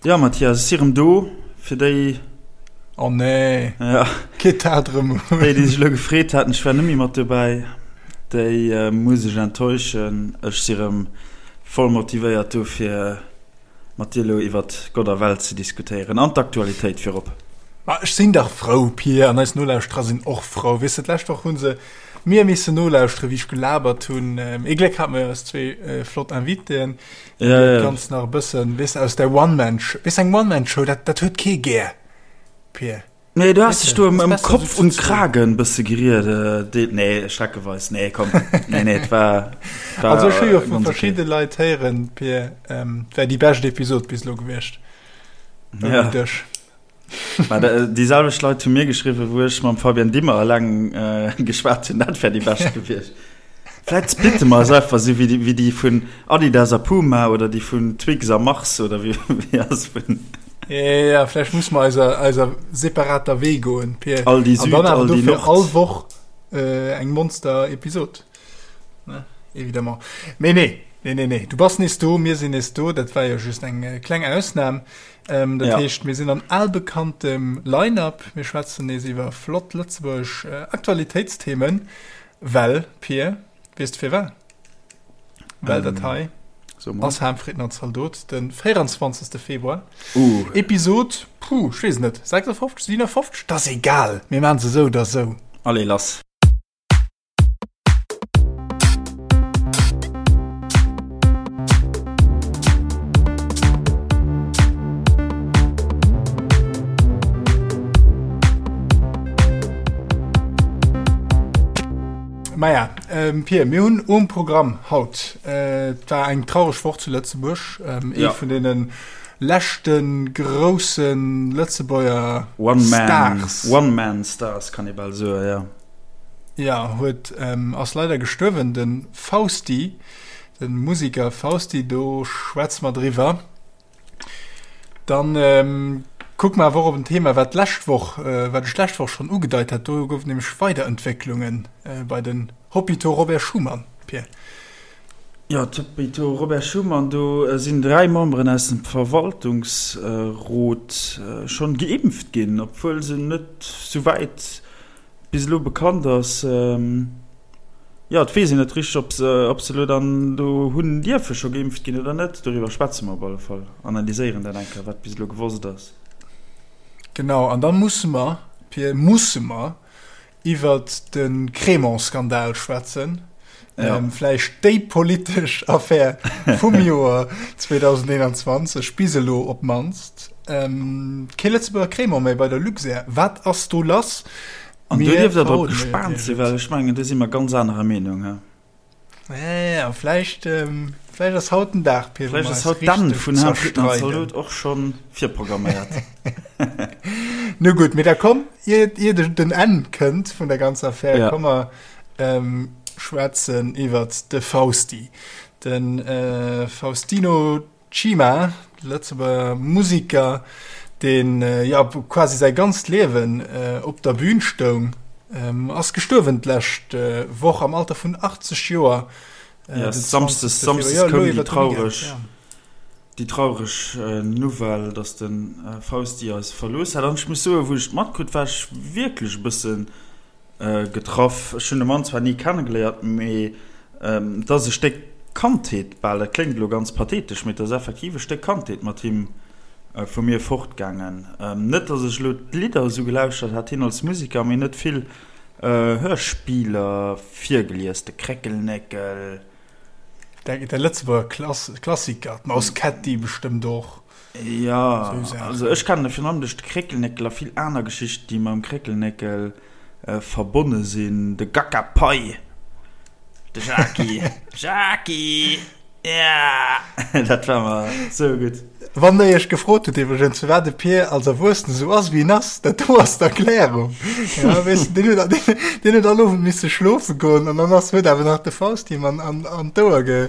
Jo Mathias, ech si rëm do, fir déi. Oh nee, ja. Geet dat rëm un? Déi, déi sech elo gefreet haten, ech wär net méi mat dobäi, déi muss ech enttäuschen. Ech si rëm voll motivéiert do fir mat dir elo iwwert Gott a Welt ze diskutéieren an d'Aktualitéit virop. Ma ech sinn dach frou, Pir, an eis Nolauschterer sinn och frou. Weess de, d'lescht Woch hu se mir missen nolauschtere wéi ech gelabert hunn. Ee Gléck hate mer jo eis zwee flott Invitéen. Ja, ja. Ganz nach e bëssen, weess aus der One-Man-Show, weess eng One-Man-Show, dat, dat huet kee gär, Pir. Nee, du hast dech do ëm, ëm Kopf und Kragen bësse geriet, äh, nee, schreckeweis, nee, komm, nee, nee, et war, war Also ech hu jo vu verschidde okay. Leit héieren, Pir, ähm, wär déi bescht Episod bis elo gewiescht. Ja. Dech. Mä déi selwecht Leit hu mir geschriwwen, wou ech mam Fabian Dimmer eleng geschwat hunn, dat wär déi bescht gewiescht. Vläit splitte mer eis einfach esou wéi déi, wéi déi vun Adidas a Puma oder déi vun Twix a Mars oder wéi, wéi ass vun. Ja, vläicht musse mer eiser, eiser separater Wee goen, Pir. Aldi Süd, An dann awer dofir all Woch eng Monster-Episod. Ne, évidemment. Mee nee, nee, nee, nee, du bass nees do, mir sinn nees do, dat war jo just eng kleng Ausnam. Ähm, dat ja. heescht, mir sinn an albekanntem Line-up. Mir schwätzen nees iwwer flott lëtzebuergesch äh, Aktualitéitsthemen, well, Pir, weess du firwat? Well ähm, dat hei so ass Harmfrieden an Zaldot, den 24. Februar. Uh. Episod, puh, ich weess net, 56, 57, das egal. Mir machen se sou oder sou. Allez, lass. Maja, ähm, Pir, mir hunn um Programm haut äh, et war eng traureg Woch zu Lëtzebuerg, ähm, ee ja. vun deenen leschte groussen Lëtzebuerger One Man, Stars. One Man Stars kann ee bal soen, ja. Ja, huet ass leider gestuerwen, de Fausti, de Musiker Fausti, do schwätze mer driwwer. Dann kucke mer awer och op en Thema, wat d'lescht Woch, wat ech d'lescht Woch schonn ugedeit hat, do gouf et nämlech Weiderentwécklunge bei den Hôpitaux Robert Schuman, Pir. Jo, d'Hôpitaux Robert Schuman, do sinn 3 Memberen aus dem Verwaltungsrot schonn geimpft ginn, obwuel se net souwäit bis elo bekannt ass, jo, et weess een net richteg, ob se, ob se elo dann do hunn dierfe scho geimpft ginn oder net. Doriwwer schwätze mer op alle Fall, analyséieren dat eng Kéier, wat bis elo gewosst ass. Genau, an da musse mer, Pir, musse mer iwwert de Crémant-Skandal schwätzen. Ja. Vläicht déi politesch Affär vum Joer 2021, bis elo op d'mannst. Kee Lëtzebuerger Crémant méi bei der Luxair. Wat ass do lass? An do dierft Der drop gespaant sinn, well ech mengen, do si mer ganz anerer Meenung. He? Ja, vläicht, vläicht ass haut den Dag, Pir, wou mer eis richteg zerstreiden. Vläicht ass haut d'Enn vun Herrn Friedmann Zalot och scho virprogramméiert. Nu gutt, mee da komm, ier, ier den Enn kënnt vun der ganzer Affär, ja. komm mer schwätzen iwwert de Fausti. De Faustino Cima, Lëtzebuerger Musiker, deen jo quasi säi ganzt Liewen op der Bün stoung, ass gestuerwen d'lescht Woch am Alter vun 80 Joer. Jo, Samsdes koum déi traureg déi traureg Nouvelle, datt de Fausti eis verlooss hat. An ech muss soen, wou ech et matkritt, war ech wierklech e bëssen Getraff. Ech hunn de Mann zwar ni kennegeléiert, mee et ass e Stéck Kandheet bal, dat kléngt elo ganz pathetesch, mee et ass effektiv e Stéck Kandheet mat him vu mir fortgaangen. Net, datt ech elo d'Lidder esou gelauschtert hat, hien als Museker, mee en huet vill Hörspieler virgelies, de Kréckelnéckel. De Lëtzebuerger Klassiker, d'Maus Kätti bestëmmt och. Jo, also ech kennen e virun allem duerch de Kréckelnéckel a vill aner Geschichten, déi mam Kréckelnéckel verbonne sinn. De Gackapai, de Jaki, Jaki, ja, dat war mer sou gutt. Wann der iech gefrot hutt iwwregens, firwat de Pir als Erwuessene sou ass, wéi en ass, dat do ass d'Erklärung. Ja, weess de, deen huet, deen huet all Owend misse schlofe goen an dann ass, huet awer nach de Faust him an, an, an d'Ouer ge,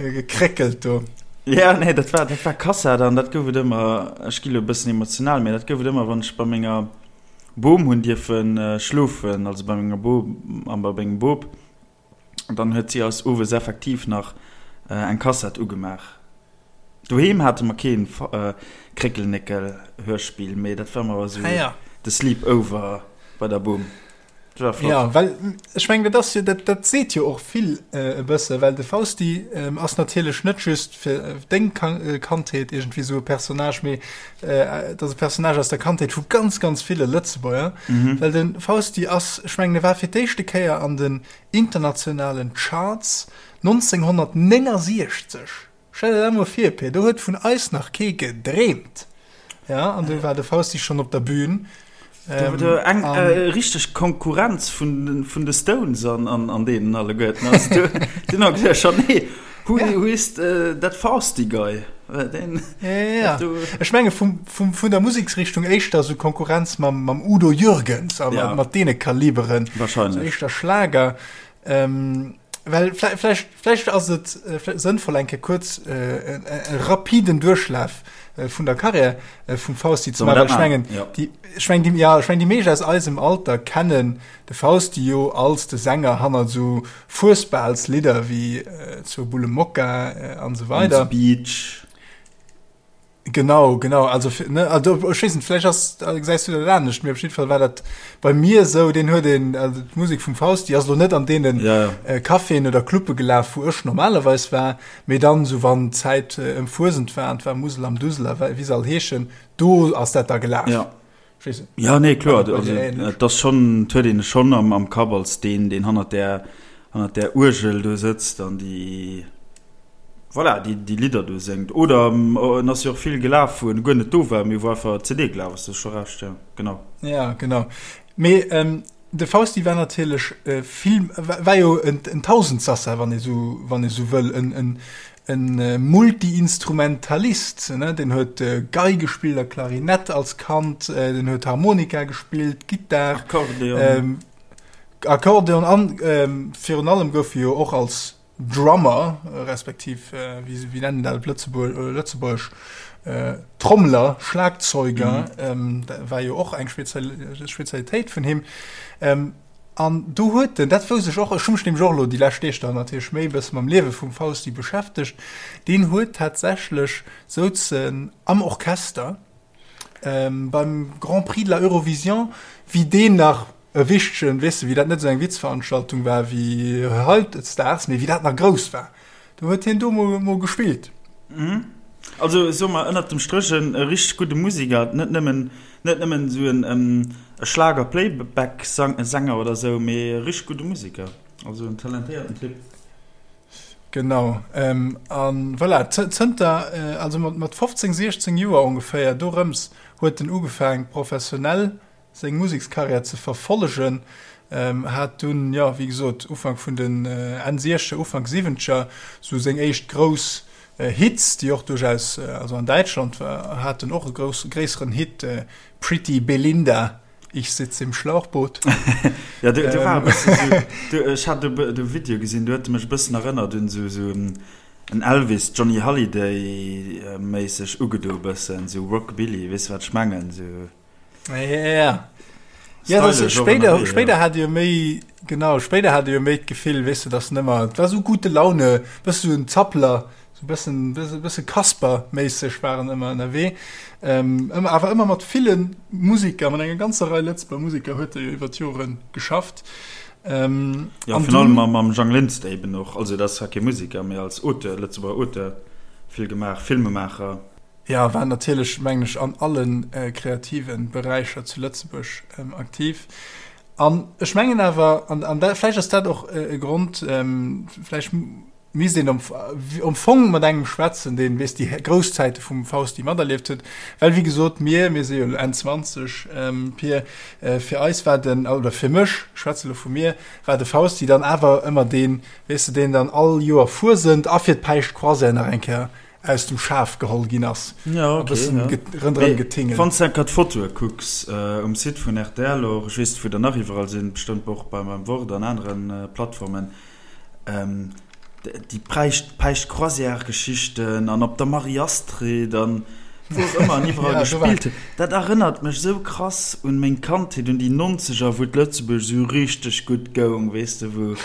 Gekréckelt do. Ja, nee, dat war, dat war Kassett an dat gouf et ëmmer, ech gi lo e bëssen emotional, mee dat gouf et ëmmer, wann ech bei menger Bom hunn dierfe schlofen, also bei menger Bom a bei mengem Bop, dann huet si eis owes effektiv nach eng Kassett ugemaach. Doheem hate mer keen Kréckelnéckel-Hörspill, mee dat war mer esou de Sleepover bei der Bom. Dat war flott. Ja, well ech mengen, dat ass jo, dat, dat seet jo och vill e bësse, well de Fausti ass natierlech net just fir deng Kandheet iergendwéi esou e Personnage, mee et ass e Personnage aus der Kandheet vu ganz, ganz ville Lëtzebuerger. Well de Fausti ass, ech mengen, e war fir d'éischte Kéier an den internationalen Charts 1969. Stell der dat mol vir, Pir, do huet vun eis nach kee gedreemt. Ja, an do war de Fausti schonn op der Bühn. Do war eng richteg Konkurrenz vun vun de Stones an an an deenen alleguerten. Also do deen hat gesot, schon nee, who who is that Fausti guy? Deen Ja, ja. Ech menge vum vum vun der Museksrichtung éischter sou Konkurrenz mam mam Udo Jürgens a mat mat deene Kaliberen. Wahrscheinlech. Sou éischter Schlager. Ähm, well vläicht, vläicht ass et äh, sënnvoll eng Kéier kuerz äh, en, e rapiden Duerchlaf äh, vun der Karriär äh, vum Fausti ze maachen. Ech mengen, ja. déi, ech mengen, déi, ja, ech mengen, déi meescht aus eisem Alter kennen de Fausti jo als de Sänger hannert sou Fuesbalslidder wéi äh, zur Bulle Mokka äh, an sou weider. On the Beach. Genau, genau. Also, ne, also, ech weess net, vläicht ass, gesäis du dat anescht, mee op jidde Fall war dat bei mir esou, deen huet een, also d'Musek vum Fausti ass elo net an deenen ja, ja. Äh, Caféen oder Clubbe gelaf, wou ech normalerweis war, mee dann, sou wann d'Zäit äh, ëm Fuesent war, an 't war Musel am Dusel a wéi se all heeschen, do ass dat da gelaf. Ja. Ja, nee, kloer, also, et ass schonn, et huet een e schonn am, am Kapp als deen, deen hannert där, hannert där Uergel do sëtzt an déi, voilà, déi, déi Lidder do séngt. Oder en ass jo och vill gelaf, wou en guer net do war, mee wou einfach d'CD gelaf ass, du hues scho Recht, ja, genau. Ja, genau. Mee de Fausti war natierlech vill, war jo en Tausendsassa, wann ee sou, wann ee sou wëll, en, en, En Multi-Instrumentalist, ne? Deen huet Gei gespillt a Klarinett als Kand, den huet Harmonika gespillt, Gittar, Akkordeon, Akkordeon an virun allem gouf e jo och als Drummer, respektiv wéi nennen een dat op Lëtzebuergesch, Trommler, Schlagzeuger, dat war jo och eng Spezialitéit vun him. An do huet en, dat wousst ech och, ech hu mech nämlech och elo déi lescht Deeg dann natierlech méi e bësse mam Liewe vum Fausti beschäftegt, deen huet tatsächlech souz en am Orchester beim Grand Prix de la Eurovision, wéi deen nach e wichtegen, weess de, wéi dat net esou eng Witzveranstaltung war wéi hautdesdaags, mee wéi dat nach grouss war, do huet hien do mol mol gespillt. Also soe mer ënnert dem Stréch en richteg gudde Musiker, net nëmmen Net nëmmen esou en Schlager-Playback-Sänger oder esou, mee e richteg gudde Museker. Also en talentéierten Typ. Genau. A voilà, zënter, also mat 15, 16 Joer ongeféier, dorëms huet en ugefaang professionell seng Musekskarriär ze verfollegen. Hat dunn, jo, wéi gesot, Ufank vun den Enn Siechzeger, Ufank Siwwenzeger sou seng éischt grouss Hits, déi och duerchaus, also an Däitschland hat en och e grouss, gréisseren Hit, Pretty Belinda, ich sitz im Schlauchboot. Ja, do, do war e bëssen esou, do, ech hat do de Video gesinn, do huet e mech e bëssen erënnert un esou, esou en Elvis, Johnny Hallyday méisseg ugedo e bëssen, esou Rockabilly, weess de wat ech mengen, esou. Ja. Ja, das, spéider, spéider hat jo méi genau spéider hat jo méi d'Gefill weess de dass nëmmer war sou gute Laune bësse sou en Zappler sou bëssen bësse bësse Kasper méisseg waren ëmmer ënnerwee ähm, ëmmer awer ëmmer mat ville Musiker mat enger ganzer Rei Lëtzebuerger Musiker huet e jo iwwer d'Jore geschafft. Ähm, ja, virun allem mam, mam Jang Linster eben och also dat ass zwar kee Musiker mee als Auteur Lëtzebuerger Auteur vill gemaach Filmemaacher. Jo, war natierlech, mengen ech, an alle kreative Beräicher zu Lëtzebuerg aktiv. An ech mengen awer, an dat, vläicht ass dat och e Grond, vläicht misst een am Fong mat engem schwätzen, deen, weess, déi grouss Zäite vum Fausti materlieft huet. Well, wéi gesot, mir, mir si jo elo Enn 20, Pir, fir eis war den, oder fir mech, ech schwätze elo vu mir, war de Fausti dann awer ëmmer deen, weess de, deen dann all Joer Fuesent a fir d'Päischtcroisière nach eng Kéier aus dem Schaf geholl ginn ass. Ja, okay, bëssen ja. rënderëm getingelt. Wann s de enker d'Fotoe kucks um Site vun rtl och, ech weess net wou der nach iwwerall sinn, bestëmmt och beim beim Wort an anere Plattformen, déi Päischt Päischt-Croisière-Geschichten an op der Marie-Astrid an wou och ëmmer an iwwerall Ja, do war gespillt huet, dat erënnert mech esou krass un meng Kandheet, un déi Nonzeger, wou d'Lëtzebuerg esou richteg gutt goung, weess de, wou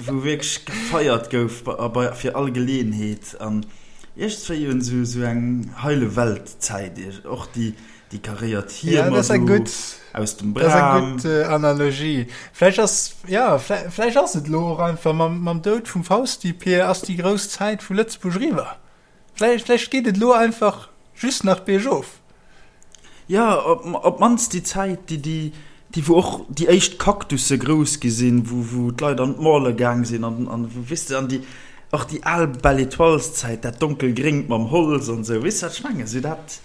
wou wierklech gefeiert gouf bei, fir all Geleeënheet. An. Iergendswéi un esou, esou eng heile Welt-Zäit, och déi, déi karéiert Hiemer do aus dem Bram. Dat ass eng gutt Analogie. Vläicht ass, jo, vläicht ass et elo och einfach mam, mam Doud vum Fausti, Pir, ass déi grouss Zäit vu Lëtzebuerg eriwwer. Vläicht, vläicht geet et elo einfach just nach biergof. Jo, op d'mannst déi Zäit, déi, déi, déi wou och déi éischt Kaktusse grouss gi sinn, wou, wou d'Leit an d'Malle gaang sinn an, an wou, weess de, an déi, och déi al Belle Étoiles-Zäit, dat donkelgréngt mam Holz an esou, weess de wat ech mengen? Esou dat,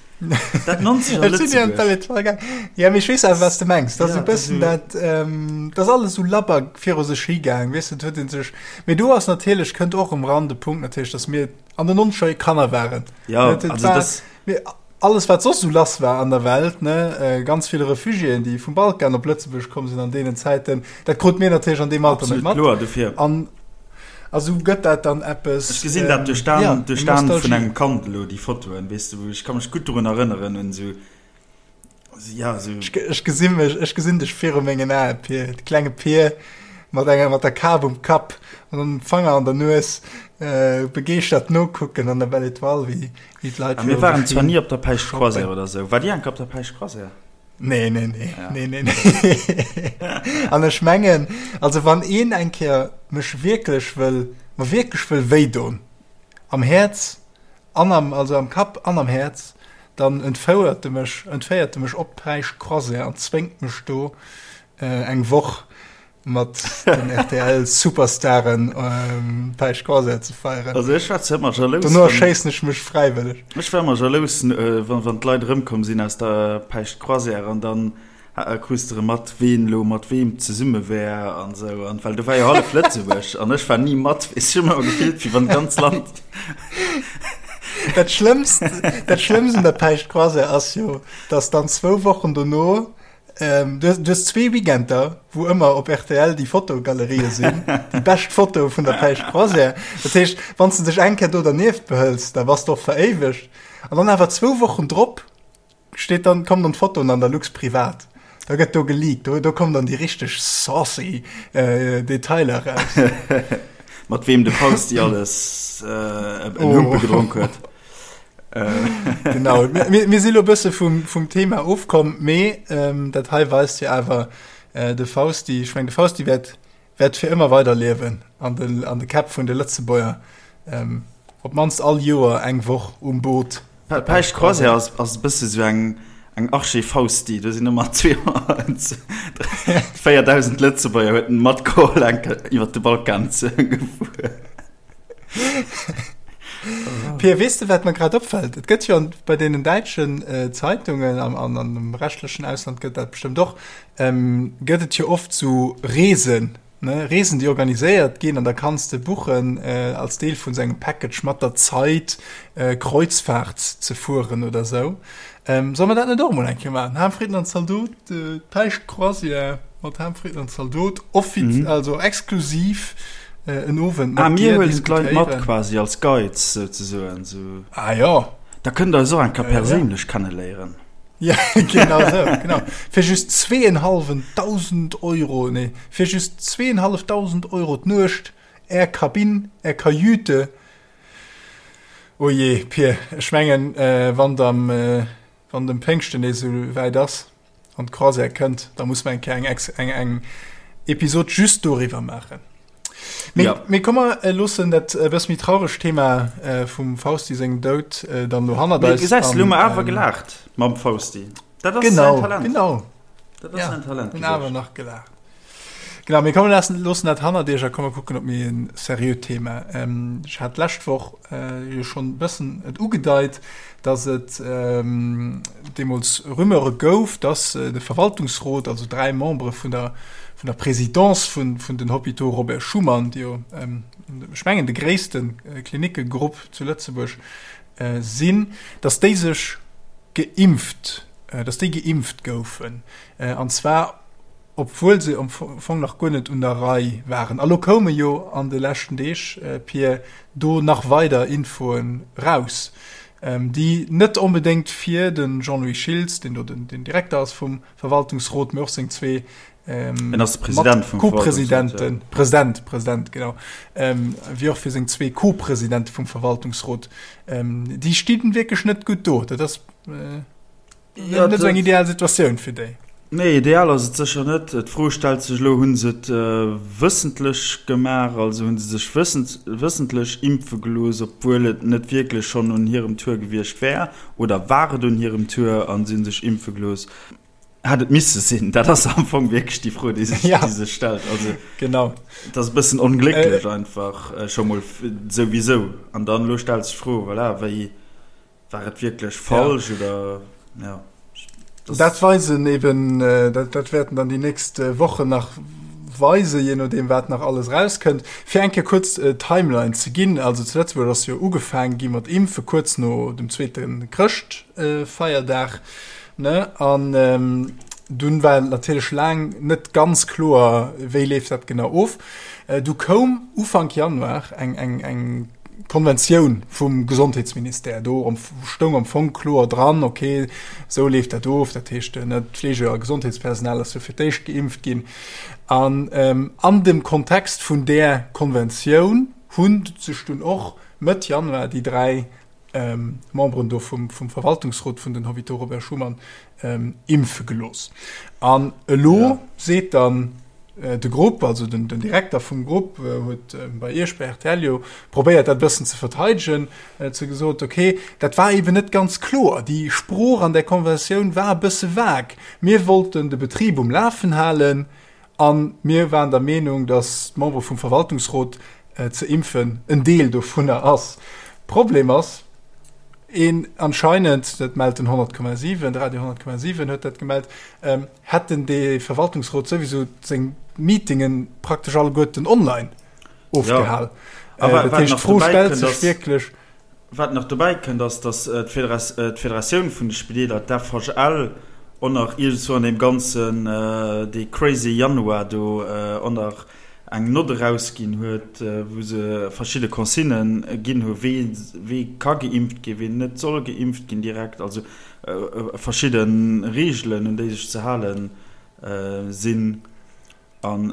dat nonzeger Ech sinn ni an d'Belle Étoile gaang. Jo, mee ech weess awer, wat s de mengs. Dat ass esou e bëssen dat, dat ass alles esou labber viru sech higaang, weess de, et huet ee sech, mee do ass natierlech, kënnt och erëm ran de Punkt natierlech, datt mir an den nonzeger Kanner waren. Jo, also dat. Alles wat soss esou lass war an der Welt, ne, ganz vill Refugiéen, déi vum Balkan op Lëtzebuerg komm sinn an deenen Zäiten, dat krut mir natierlech an deem Alter net mat. Absolut kloer, dofir. An a sou gëtt dat dann eppes. Ech gesinn dat duerch d'Aen, duerch d'Aen vun engem Kand elo, déi Fotoen, weess de, wou ech ka mech gutt dorun erënneren un esou, ja, esou. Ech gesi mech, ech gesinn dech viru mengen Aen, Pir, de klenge Pir mat enger, mat der Kap um Kapp an dem Fanger an der Nues, begeeschtert nokucken an der Belle Étoile, wéi Wéi d'Leit A mir waren zwar ni op der Päischt Croisière oder sou. War Dir enke op der Päischt Croisière? Nee, nee, nee. Ja. Nee, nee, nee. An ech mengen, also wann een eng Kéier mech wierklech wëll, mer wierklech wëll wéidon, am Häerz an am, also am Kapp an am Häerz, dann entfouert e mech, entféiert e mech op d'Päischt Croisière an zwéngt mech do äh, eng Woch mat den RTL Superstaren ähm, Päischt Croisière ze feieren. Also ech war ëmmer jalous. Dono erschéissen ech mech fräiwëlleg. Ech war ëmmer jalous, äh, wann, wann d'Leit erëmkomm sinn aus der Päischt Croisière an dann äh, krus de erëm mat, ween elo mat weem zesumme wär an sou. An well do war jo hallef Lëtzebuerg an ech war ni mat. Ech hu mech ëmmer gefillt, wéi wann d'ganz Land. Dat Schlëmmst, dat Schlëmmst un der Päischt Croisière ass jo, dass dann zwou Wochen dono Ähm, du, du hues zwee Weekender, wou ëmmer op RTL déi Fotogalerië sinn, déi bescht Foto vun der Päischt Croisière. Dat heescht, wann s de dech eng Kéier do dernieft behëls, da bass de och veréiwegt. An dann awer zwou Wochen drop steet dann, kommen dann d'Fotoen an der Lux Privat. Da gëtt do geleakt, do, do kommen dann déi richteg saucy äh, Detailer raus. Mat weem de Fausti alles äh, en Humpe oh. gedronk huet. Genau, mir, mir si lo bësse vum, vum Thema ofkomm, mee ähm, dat hei weist jo awer äh, de Fausti, ech meng de Fausti wäert, wäert fir ëmmer weiderliewen an de, an de Käpp vun de Lëtzebuerger. Ähm, op d'mannst all Joer eng Woch um Boot. Päischt Croisière ass, ass e bësse sou eng, eng Arche Fausti, do sinn ëmmer 4.000 Lëtzebuerger huet en matgeholl eng Kéier iwwer de Balkan ze gefuer. Pia, weess de, wat mer grad opfällt? Et gëtt jo bei deenen däitschen äh, Zeitungen an, an, an dem rechtlechen Ausland gëtt dat bestëmmt och, ähm, gëtt et jo oft so Reesen, ne? Reesen, déi organiséiert ginn an da kanns de buchen äh, als Deel vun sengem Package mat der Zeit äh, Kreuzfahrt ze fueren oder sou. Ähm, soll mer dat net och mol eng Kéier maachen? Ham, Fritten an Zaldot, äh, d'Päischt Croisière mat Ham, Fritten an Zaldot, offiz mhm. also exklusiv äh, en Owend mat ah, mir huelen d'Leit mat quasi als Guides souzesoen. So. Ah ja. Da kënnt der eis och eng Kéier perséinlech ja. kenneléieren. Ja, genau so, genau. Fir just zweenhalwen tausend Euro, nee, fir just zweenhalleftausend Euro d'Nuecht, Är Kabinn, Är Kajüte, Oh jee, Pir, ech mengen, wann et am, wann dem Péngschten nees esou wäit ass an d'Croisière kënnt, da muss mer eng Kéier eng ex, eng, eng Episod just doriwwer maachen. Mee, ja. mee komm, mer loossen dat e bësse méi trauregt Thema vum Fausti sengem Doud dann elo hannert eis. Mee gesäis, elo hu mer awer gelaacht mam Fausti. Dat ass genau, säin Talent. Genau. Dat ass ja, säin Talent. Hunn awer nach gelaacht. Genau, mir kommen lassen, loossen dat hannert iech a komme kucken op méi en seriöt Thema. Ähm, ech hat d'lescht Woch äh, jo schonn e bëssen et ugedeit, dass et ähm, deemools Rumeure gouf, dass äh, de Verwaltungsrot, also dräi Membere vun der, vun der Présidence vun, vun den Hôpitaux Robert Schuman, déi jo, ähm, ech mengen, de gréissten äh, Klinickegrupp zu Lëtzebuerg äh, sinn, dass déi sech geimpft, äh, dass déi geimpft goufen. Äh, an zwar obwuel se am Fong nach guer net un der Rei waren. A lo koume jo an de leschten Deeg, Pir, do nach weider Infoen raus. déi net onbedéngt fir de Jean-Louis Schiltz, deen do den Direkter ass vum Verwaltungsrot, mee och seng zwee En ass de President vum Co-Presidenten, President, President, genau, wéi och fir seng zwee Co-Presidente vum Verwaltungsrot, déi stinn wierklech net gutt do. Dat ass ja, net esou eng ideal Situatioun fir déi. Nee, ideal ass et sécher net. D'Fro stellt sech elo, Hu se et wëssentlech gemaach, also hu se sech wëssentlech impfe gelooss, obwuel et net wierklech schonn un hirem Tour gewiescht wär, oder war et un hirem Tour a si hu sech impfe gelooss? Hätt et misse sinn? Dat ass am Fong wierklech déi Fro, déi sech, ja. déi sech stellt. Also, genau. Dat ass e bëssen onglécklech äh, einfach äh, scho mol souwisou. An dann elo stellt sech d'Fro, voilà, wéi war et wierklech falsch ja. oder ja. Das, dat weisen eben, äh, dat, dat wäerten dann déi nächst äh, Wochen nach weisen, je nodeem wat nach alles rauskënnt. Fir eng Kéier kuerz äh, Timeline ze ginn, also zu Lëtzebuerg ass jo ugefaangen gi mat Impfe kuerz no dem zweete Chrëschtfeierdag. Äh, Ne? An ähm, dunn war natierlech laang net ganz kloer, wéi leeft dat genau of. Äh, du koum Ufank Januar eng, eng, eng Konventioun vum Gesondheetsministère. Do stoung am Fong kloer dran, okay, sou leeft dat of. Dat heescht, äh, ne, d'Fleege a Gesondheetspersonal ass jo fir d'éischt geimpft ginn. An ähm, an dem Kontext vun där Konventioun hunn sech dunn och Mëtt Januar déi dräi Memberen do vum Verwaltungsrot vun den Hôpitaux Robert Schuman impfe gelooss. An elo seet dann de Grupp, also den Direkter vum Grupp huet bei Iech bei rtl jo probéiert dat e bëssen ze verteidegen, huet se gesot, okay, dat war eeben net ganz kloer, déi Sprooch an där Konventioun war e bësse vague. Mir wollten de Betrib um Lafen halen, A mir waren der Meenung, datt d'Membere vum Verwaltungsrot ze impfen en Deel dovunner ass. Problem ass een anscheinend, dat mellt den 100,7, de Radio 100,7 huet dat gemellt, hätten de Verwaltungsrot souwisou seng Meetinge praktesch alleguerten online ofgehal. Dat heescht, d'Fro stellt sech wierklech. Wat nach dobäi kënnt, ass, datt d'Federatioun vun de Spideeler, d'FHL, och nach iergendzwou an deem ganzen, dee crazy Januar do, och nach eng Nott erausginn huet, wou se verschidde Consignë ginn hu wee wee ka geimpft ginn, ween net soll geimpft ginn direkt, also verschidde Reegelen, un déi sech ze hale sinn. An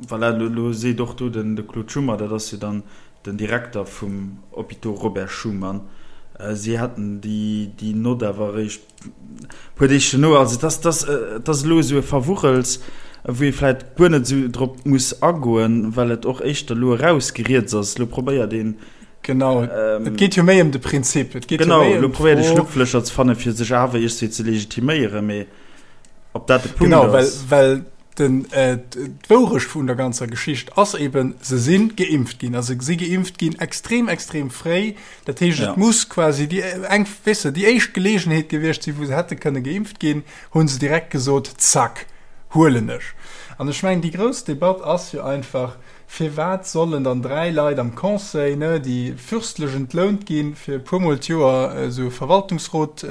voilà, elo seet och do den de Claude Schummer, dat ass jo dann den Direkter vum Hôpitaux Robert Schuman, si hätten déi déi Nott awer eréischt e puer Deeg duerno. Also et ass, et ass, et ass elo esou e Verwuchels, wou ee vläicht guer net esou drop muss agoen, well et och éischter elo erausgeriets ass. Elo probéiert een, Genau, et geet jo méi ëm de Prinzip, et geet jo genau, méi elo ëm probéiert ee d'Fro, Schlupflécher ze fannen, fir sech awer iergendwéi ze legitiméieren, mee. Ob dat de Punkt Genau, well, ass. well den, äh, d'Wourecht vun der ganzer Geschicht ass eben, se sinn geimpft ginn. Also se si geimpft ginn extrem, extrem fréi. Dat heescht, Ja. et muss quasi déi eng, weess de, déi éischt Geleegenheet gewiescht sinn, wou se hätte kënne geimpft ginn, hu se direkt gesot, zack, huelen ech. An ech mengen, déi grouss Debatt ass jo einfach, Firwat sollen dann 3 Leit am Conseil, ne, déi fürstlech entlount ginn, fir e puermol d'Joer esou e Verwaltungsrot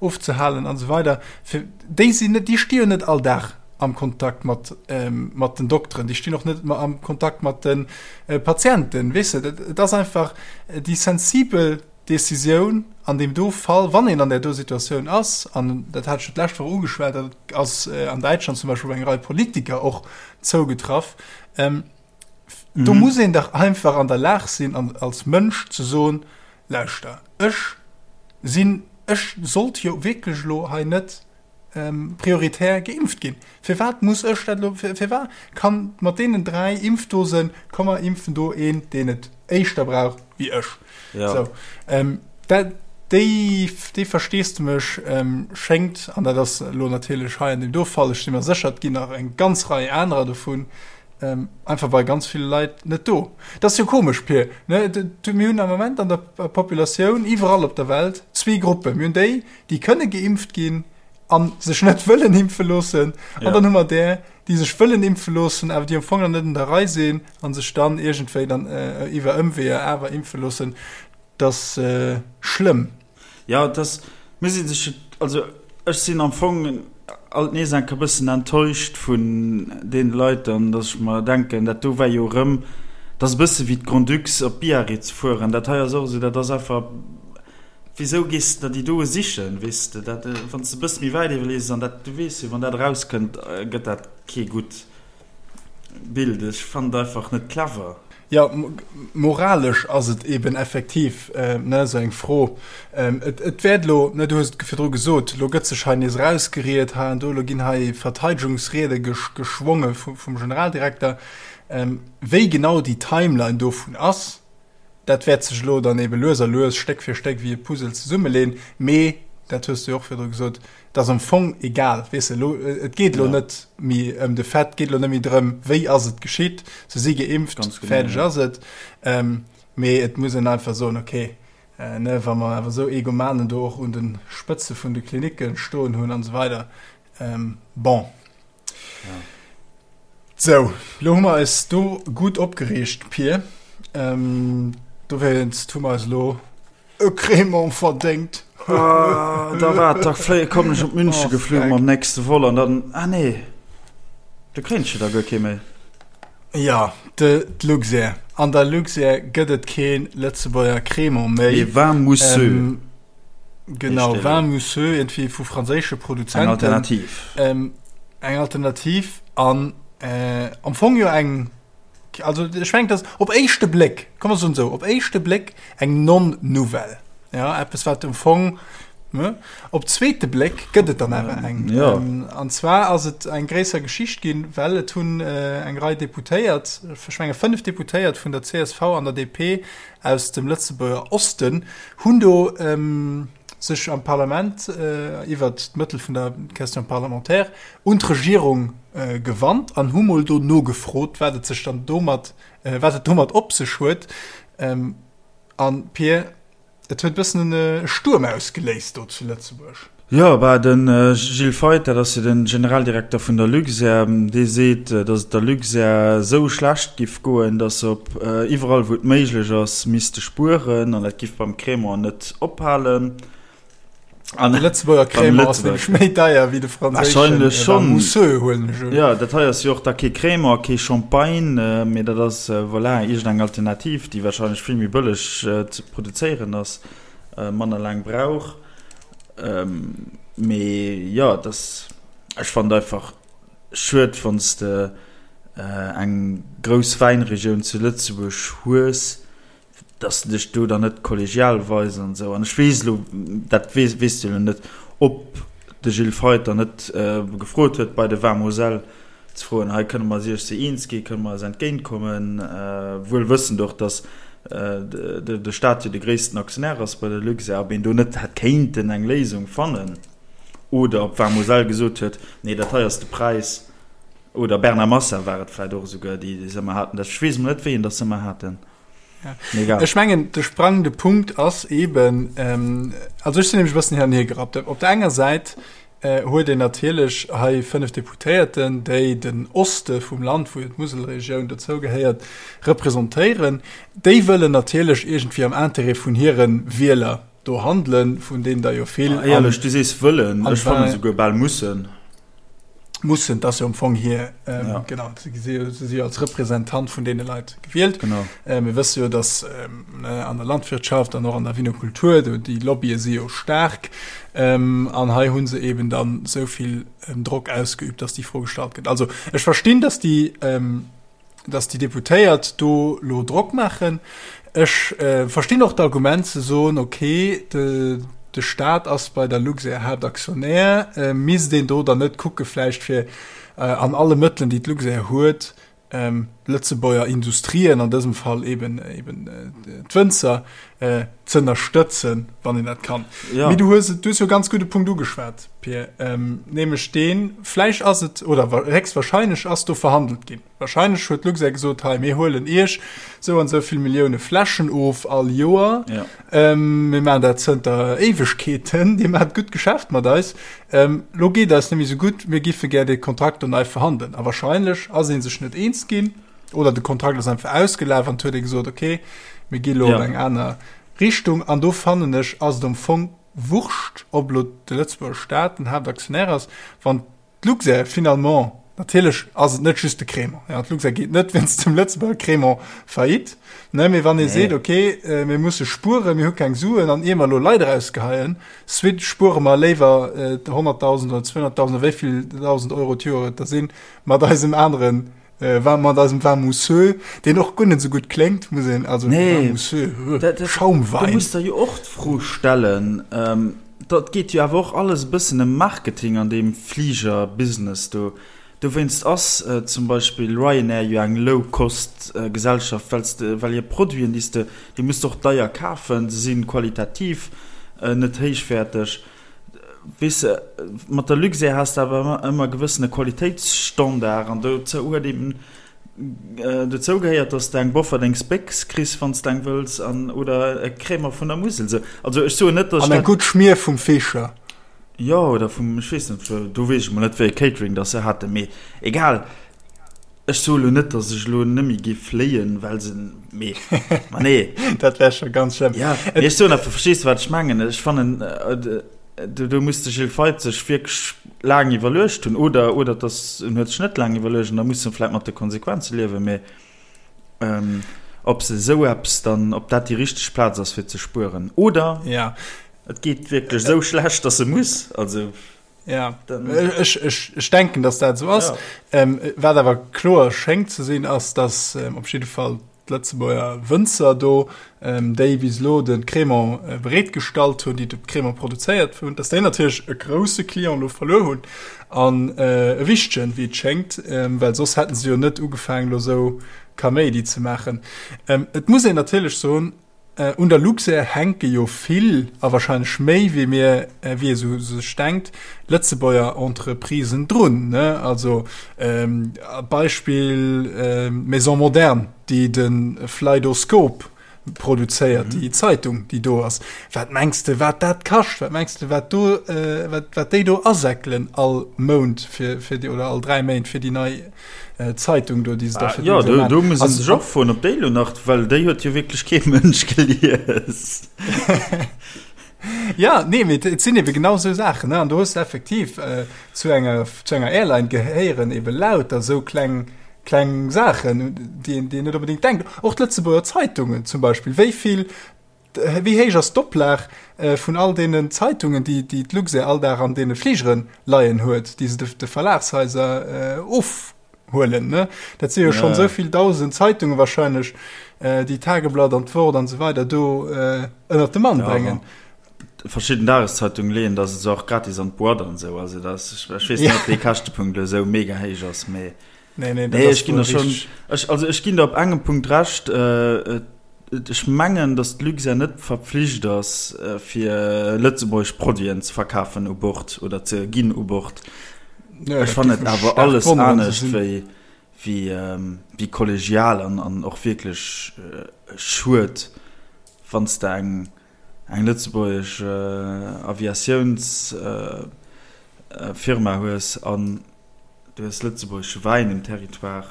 ofzehalen an esou weider, fir, déi sinn net, déi sti jo net all Dag am Kontakt mat, mat den Dokteren, déi stinn och net am Kontakt mat de Patienten, weess de. Et ass einfach déi sensibel Decisioun an deem do Fall, wann een an där do Situatioun ass, an dat hat ech jo d'lescht Woch ugeschwat, dat ass an Däitschland zum Beispill op eng Rei Politiker och zougetraff, do muss een dach einfach an der Lag sinn an als Mënsch ze soen, Lauschter, ech sinn, ech sollt jo wierklech elo hei net prioritär geimpft ginn. Firwat muss ech dat elo, firwat kann mat deenen 3 Impfdosen, komm mer impfen do een, deen et éischter brauch wéi ech. Ja. Sou, dat, déi, déi Versteesdemech schéngt, an dat ass elo natierlech hei an deem do Fall, ech si mer sécher, et ginn nach eng ganz Rei anerer dovun, einfach bei ganz ville Leit net do. Dat ass jo komesch, Pir, ne? Mir hunn am Moment an der Populatioun iwwerall op der Welt zwee Gruppen. Mir hunn déi, déi kënne geimpft ginn a sech net wëllen impfe loossen. An Ja. dann hu mer där, déi sech wëllen impfe loossen, awer déi am Fong nach net un der Rei sinn a sech dann iergendwéi dann iwwer Ëmweeër awer impfe loossen. Dat ass schlëmm. Ja, et ass, muss ee sech, also ech sinn am Fong alt nees enk e bëssen enttäuscht vun deene Leit dann, datt ech mer denken, dat do war jo erëm, dat ass e bësse wéi d'Grand-Ducs op Biarritz fueren, dat hei ass och esou, dat ass einfach. Wisou gees de der déi doe sichen, weess de? Dat, wann s de e bësse méi wäit iwwerlees, an dat, du weess jo, wann dat erauskënnt, gëtt dat kee gutt Bild. Ech fannen et einfach net clever. Jo, moralesch ass et eben effektiv, ne, esou eng Fro. Et, et wäert elo, ne, du hues et virdru gesot, elo gëtt sech hei nees erausgeriet hei an do, elo ginn hei Verteidegungsriede geschwonge vum Generaldirekter. Wéi genau déi Timeline dovun ass, Dat wäert sech elo dann ebe lues a lues, Stéck fir Stéck, wéi e Puzzle zesummeleen. Mee, dat hues du jo och virdru gesot, et ass am Fong egal. Weess de, elo, et geet elo net méi ëm de Fait, et geet elo net méi drëm, wéi ass et geschitt, se si geimpft, fäerdeg ass et. Mee et muss een einfach soen, okay, ne, wa mer awer esou Egomanen do och un de Spëtze vun de Klinicke stoen hunn an esou weider, bon. Ja. Sou, lo hu mer eis do gutt opgereegt, Pir. Ähm, dowéinst hu mer eis elo e Crémant verdéngt. Ah, da waart, da fléie kommen ech op München oh, geflunn mam nächste Vol an dann ah nee, do kréint ech jo da guer kee méi. Ja, de d'Luxair. An der Luxair gëtt et kee Lëtzebuerger Crémant méi. Mee vin mousseux. Ähm, Genau, Vin mousseux, irgendwie vu franséische Produzenten. Eng Alternativ. Ähm, eng Alternativ an äh, am Fong jo eng, also ech mengen, dass op éischte Bléck, komm mer soen esou, op éischte Bléck eng Non-Nouvelle. Ja, eppes wat am Fong, ne? Op zweete Bléck gëtt et dann awer eng. Ja. Ähm, an zwar ass et eng gréisser Geschicht ginn, well et hunn äh, eng Rei Deputéiert, ech menge 5 Deputéiert vun der csv an der DP aus dem Lëtzebuerger Osten hunn do sech am Parlament iwwert d'Mëttel vun der Question parlementaire un d'Regierung gewannt an hu mol do nogefrot, wat et sech dann domat, wat et domat op sech huet. An, Pir, Et huet e bëssen e Stuerm ausgeléist do zu Lëtzebuerg. Jo, bah, de Gilles Feith, dat ass jo de Generaldirekter vun der Luxair, dee seet, datt et der Luxair esou schlecht giff goen, datt se op iwwerall wou et méiglech ass misste spueren an dat giff beim Crémant net ophalen. An de Lëtzebuerger Crémant ass nämlech méi deier wéi de franséischen Wahrscheinlech schonn. Mousseux, huelen ech un. Jo, dat hei ass jo och da kee Crémant, kee Champagne, mee dat ass, voilà, iergendeng Alternativ, déi wahrscheinlech vill méi bëlleg ze produzéieren ass, manner laang brauch. Mee jo, et ass, ech fannen et einfach schued, wann s de eng grouss Wäinregioun zu Lëtzebuerg hues, dass de dech do dann net kollegial weis an esou. An ech weess elo, dat weess, weess de elo net, ob de Gilles Feith dann net gefrot huet bei de Vin Moselle ze froen, hei kënne mer eis iech se eens ginn, kënne mer eis entgéintkommen, wuel wëssend och, dass de Staat jo de gréissten Aktionär ass bei der Luxair, ob een do net hätt kéinten eng Léisung fannen oder ob Vin Moselle gesot huet, nee dat hei ass de Präis, oder Bernard Massa war et vläicht och esouguer, déi se ëmmer haten, ech weess emol net wéi een dass se ëmmer haten. Ja. Ech mengen de sprangende Punkt ass eben ähm, also ech sinn nämlech e bëssen hin an hier gerappt. Op der enger Säit äh, huet een natierlech hei 5 Deputéierten, déi den Oste vum Land, wou jo d'Muselregioun dozou gehéiert, representéieren. Déi wëllen natierlech iergendwéi am Intérêt vun hire Wieler do handelen, vun deenen der jo vill. Ah, éierlech, du sees wëllen, ech fannen esouguer bal mussen. Mussen, dat ass jo am Fong hir, ähm, ja. genau, se si, si als Representant vun deene Leit gewielt. Genau. Äh, mir wësse jo, dass ähm, an der Landwirtschaft an och an der Vinokultur, do déi Lobbye si jo staark. Ähm, an hei hu se eben dann esou vill ähm, Drock ausgeübt, dass déi Fro gestallt gëtt. Also ech verstinn, dass déi ähm, dass déi Deputéiert do lo Drock maachen. Ech verstinn och d'Argument ze soen, okay, de de Staat ass bei der Luxair Haaptaktionär, misst een do dann net kucke vläicht fir an alle Mëttelen, déi d'Luxair huet, d'Lëtzebuerger Industrien, an dësem Fall eben eben d'Wënzer, z'ënnerstëtzen, wann een dat kann. Mee du hues du hues jo e ganz gudde Punkt ugeschwat, Pir, nämlech deen, vläicht ass et, oder héchstwahrscheinlech ass do verhandelt ginn. Wahrscheinlech huet d'Luxair gesot, hei, mir huelen Iech esou an esou vill Millioune Fläschen of all Joer. Ja. Mir maachen dat zënter Éiwegkeeten, Dir maacht gutt Geschäft mat eis. Lo geet eis net méi esou gutt, mir giffe gär dee Kontrakt do nei verhandelen. A wahrscheinlech ass ee sech net eens ginn oder de Kontrakt ass einfach ausgelaf an et huet ee gesot, okay, mir gi lo Ja. op eng aner Richtung. An do fannen ech, ass et am Fong wurscht, ob lo de Lëtzebuerger Staat den Haaptaktionär ass, wann d'Luxair finalement. Natierlech ass et net just de Crémant. Ja, d'Luxair geet net wéinst dem Lëtzebuerger Crémant faillite. Ne, mee wann ee seet, okay, äh, mir musse spueren, mir hu keng Suen an ier mer elo Leit erausgeheien, swit spuere mer léiwer äh, 100.000 oder 200.000 oder wéi vill 1.000 Euro d'Joer et da sinn, mat eisem aneren äh, vin, mat eisem Vin mousseux, deen och guer net esou gutt kléngt, muss een, also Nee, Vin mousseux, dat, dat, do Schaumwein. muss der jo och d'Fro stellen, ähm, Dat geet jo awer och alles e bëssen ëm Marketing an deem Fliger-Business do. Dowéinst ass zum Beispill Ryanair jo eng Low-Cost-Gesellschaft, well s de, well hir Produiten, déi s de, déi muss de och deier kafen, se si qualitativ net héichwäerteg. Weess de, mat der Luxair has de awer ëmmer e gewëssene Qualitéitsstandard an dozou huet eben Dozou gehéiert, dass de eng Bofferdings Béchs kriss, wann s de eng wëlls, an oder e Crémant vun der Musel. Sou, also ech soen net, dass ech dat. An eng gutt Schmier vum Fischer. Jo, oder vum, ech weess net, do weess ech mol net, wéi e Catering dass se haten, mee egal. Ech soe lo net, dass ech elo nëmme géif fléien, well se, mee, ma nee. Dat wär scho ganz schlëmm. Ja, mee ech soen einfach, verstees de, wat ech mengen? Ech fannen, Do, do muss de Gilles Feith sech wierklech laang iwwerluecht hunn, oder, oder dass en huet sech net laang iwwerluecht an da muss en vläicht mat de Konsequenze liewen, mee ähm, ob se esou eppes dann, ob dat déi richteg Plaz ass fir ze spueren, oder ja. et geet wierklech esou schlecht, dass e muss, also ja. Dann, ech, ech, ech denken, dass dat esou ass. Ja. Ähm, wat awer kloer schéngt ze sinn, ass, dass ähm, op jidde Fall D'Lëtzebuerger Wënzer do, déi bis elo de Crémant bereet gestallt hunn, déi de Crémant produzéiert hunn, datt déi natierlech e grousse Client elo verluer hunn an e wichtegen, wéi et schéngt, well soss hätte se jo net ugefaangen, elo esou Kaméidi ze maachen. Et muss een natierlech soen, Un der Luxair hänke jo vill, a wahrscheinlech méi wéi mir, wéi ee sou sech denkt, Lëtzebuerger Entreprisen drun, ne? Also Beispill d'Maison Moderne, déi de Fleidoscope produzéiert, déi Zeitung, déi do ass. Wat mengs de, wat dat kascht? Wat mengs de, wat do, wat, wat déi do asäckelen all Mount fir, fir déi, oder all 3 Méint fir déi nei Zeitung do, déi se da fir Jo, do, do muss een sech och froen, ob déi elo nach, well déi huet jo wierklech kee Mënsch gelies. Ja, nee, mee et sinn ebe genau esou Saachen, ne? An do hues de effektiv äh, zu enger, zu enger Airline gehéieren ebe lauter esou kleng, kleng Saachen, déi een, déi een net onbedéngt denkt. Och d'Lëtzebuerger Zeitungen zum Beispill, wéi vill Wéi héich ass d'Oplag vun all deenen Zeitungen, déi d'Luxair all Dag an deene Fligere leien huet, déi se de Verlagshaiser ofhuelen? Dat si jo schonn esou vill dausend Zeitungen wahrscheinlech, déi d'Tageblatt an d'Wort an esou weider do ënnert de Mann bréngen. Verschidden Dageszeitungen leeën der se och gratis an d'Boîte an esou. Also dat ass, ech weess net, ob dee Käschtepunkt elo esou mega héich ass, mee. Nee, nee, nee ech ginn der schon ech, also ech ginn der op engem Punkt recht äh, ech mengen dass d'Luxair net verpflicht ass äh, fir lëtzebuergesch Produiten ze verkafen u Bord oder ze ginn u Bord. Ja, ech fannen et awer alles anescht wéi wéi ähm, wéi kollegial an an och wierklech äh, schued wann s de eng eng lëtzebuergesch äh, Aviatiouns äh, äh, Firma hues an Du hues lëtzebuergesche Wäin um Territoire.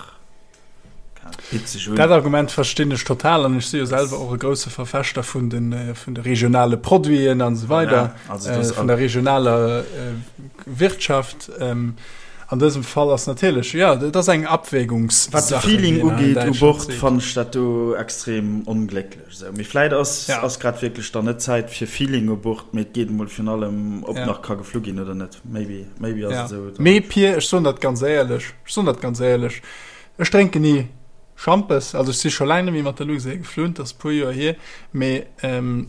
Bitt sech un. Dat Argument verstinn ech total an ech si jo selwer och e grousse Verfechter vun de, vun de regionale Produiten an esou weider, Voilà, also das vun der regionaler Wirtschaft. An dësem Fall ass natierlech, jo, dat ass eng Wat de Abwägungssache, Feeling wéi een hei in ugeet u Däitschland Bord, seet. fannen ech dat do extrem onglécklech. Esou, mee vläit ass, Ja. ass grad wierklech dann net Zäit fir Feeling u Bord, mee et geet emol virun allem, ob Ja. nach ka geflu ginn oder net. Maybe, maybe ass Ja. et esou. Dann. Mee Pir, ech soen dat ganz éierlech, ech soen dat ganz éierlech, ech drénken ni Schampes, also ech si scho laang net méi mat der Luxair geflunn, dat ass e puer Joer hier, mee ähm,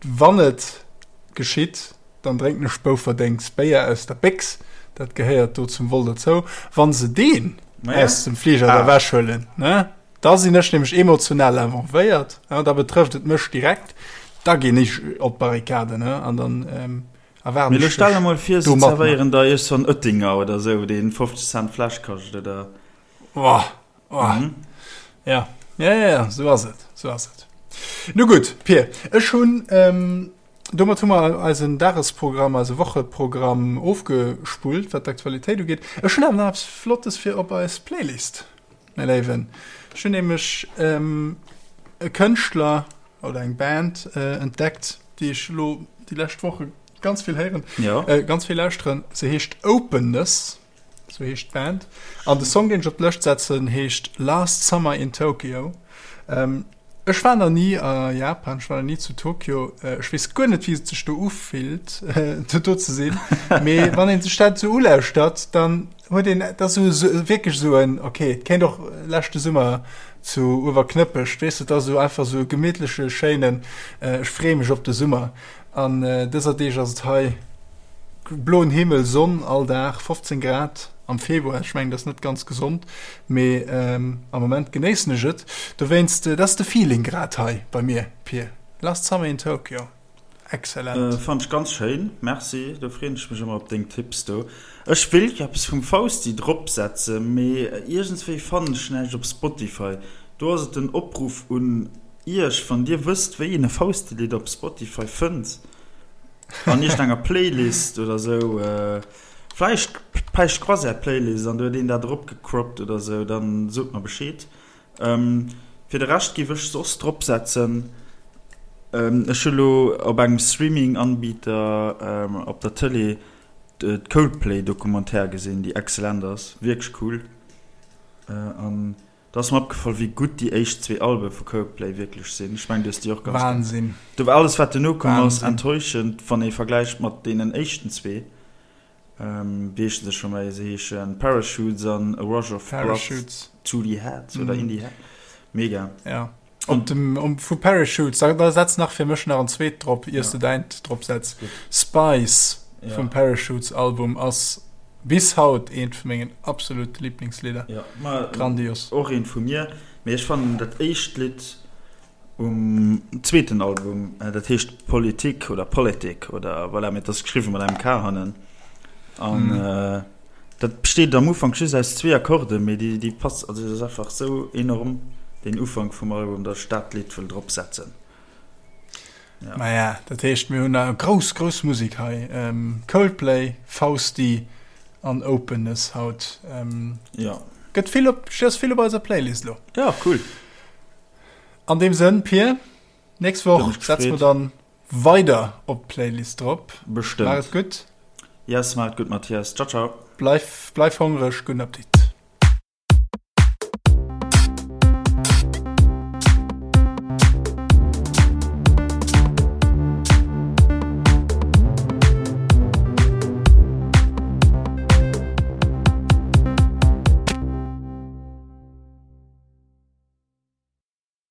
wann et geschitt, dann drénken ech Bouferdéngs Béier aus der Béchs, dat gehéiert do zum Vol dozou. Wann se deen Naja. aus dem Fliger da Ah. ewechhuelen, ne? Da sinn ech nämlech emotional involvéiert, da betrëfft et mech direkt, da ginn ech op d'Barrikaden an dann erwaarden Mee elo ech stell der dech mol vir, se do mat mer. zerwéieren der iergst en Oettinger oder esou, deen 50 Cent d'Fläsch kascht, oder? Oh, oh. Ja, ja, ja, ja, sou ass et, sou ass et. Nu gutt, Pir, ech hunn, domat hu mer eisen Dagesprogramm, eise Wocheprogramm ofgespullt, wat d'Aktualitéit ugeet. Ech hunn awer nach eppes Flottes fir op eis Playlist. Mäi Léiwen, ech hunn nämlech e Kënschtler oder eng Band entdeckt, déi ech elo déi lescht Woche ganz vill héieren, ja. ganz vill lauschteren. Se heescht Openness. Sou heescht d'Band. An de Song, deen ech op d'Lëscht setzen, heescht Last Summer in Tokyo. Ech war nach ni a Japan, ech war nach ni zu Tokio. Ech weess guer net, wéi et sech do ufillt, do ze sinn. Mee wann een sech dat esou ulauschtert, dann huet een, dat ass esou wierklech esou en, okay, et kéint och leschte Summer zu Uewerknëppech, weess de, et ass esou einfach esou e gemittleche, schéinen, ech freeë mech op de Summer. An dëser Deeg ass et hei bloen Himmel, Sonn all Dag, 15 Grad am Februar. Ech mengen, dat ass net ganz gesond, mee am Moment genéissen ech et. Dowéinst, dat ass de Feeling grad hei bei mir, Pir. Last Summer in Tokyo, excellent. Fannt ech ganz schéin, merci. Do freen ech mech ëmmer op deng Tipps do. Ech wéilt jo eppes vum Fausti drop setzen, mee iergendswéi fannen ech näischt op Spotify. Do ass et den Opruff un Iech, wann dir wësst wéi een e Fausti-Lidd op Spotify fënnt, an iergendenger Playlist oder sou, vläicht Päischt Croisière Playlist an do huet een dat eropgecroppt oder sou, dann sot mer Bescheed. Fir de Rescht giff ech soss drop setzen, ech hu lo op engem Streaming-Anbieter op der Tëlee d'Coldplay Documentaire gesinn, déi excellent ass, wierklech cool an Da ass mer opgefall wéi gutt déi éischt zwee Albe vu Coldplay wierklech sinn. Ech mengen du hues déi och ganz Wahnsinn. Do war alles wat duerno komm ass enttäuschend wann ee vergläicht mat deenen éischten zwee. Wéi heeschen se scho méi? Se heeschen Parachutes an A Rush of Blood to the Head oder in the Head. Mega. Ja. Op dem um, vu Parachutes, da, da setz nach fir mech nach en zweet drop, iers ja. du däint drop setz. Spice ja. vum Parachutes Album ass bis haut eent vu mengen absolute Lieblingslidder. Ja, ma, Grandios. Och eent vu mir. Mee ech fannen dat éischt Lidd um zweeten Album, äh, dat heescht Politik oder Politik oder voilà, mee dat ass geschriwwen mat engem K hannen. An mm. äh, Dat besteet am Ufank just aus zwee Akkorden, mee déi, déi pass, also dat ass einfach sou enorm, deen Ufank vum Album, datt ech dat Lidd wëll drop setzen. Ja. Maja, dat heescht mir hunn nach grouss, grouss Musek hei. Ähm, Coldplay, Fausti an Openness haut. Ähm, ja. Gëtt vill op, ass vill op eiser Playlist lo. Ja, cool. An deem Sënn, Pir, nächst Woch setze mer dann Weider op d'Playlist drop. Bestëmmt. Maach et gutt. Yes, maach et gutt Mathias. Ciao ciao. Bleif, bleif hongreg. Gudden Appetit.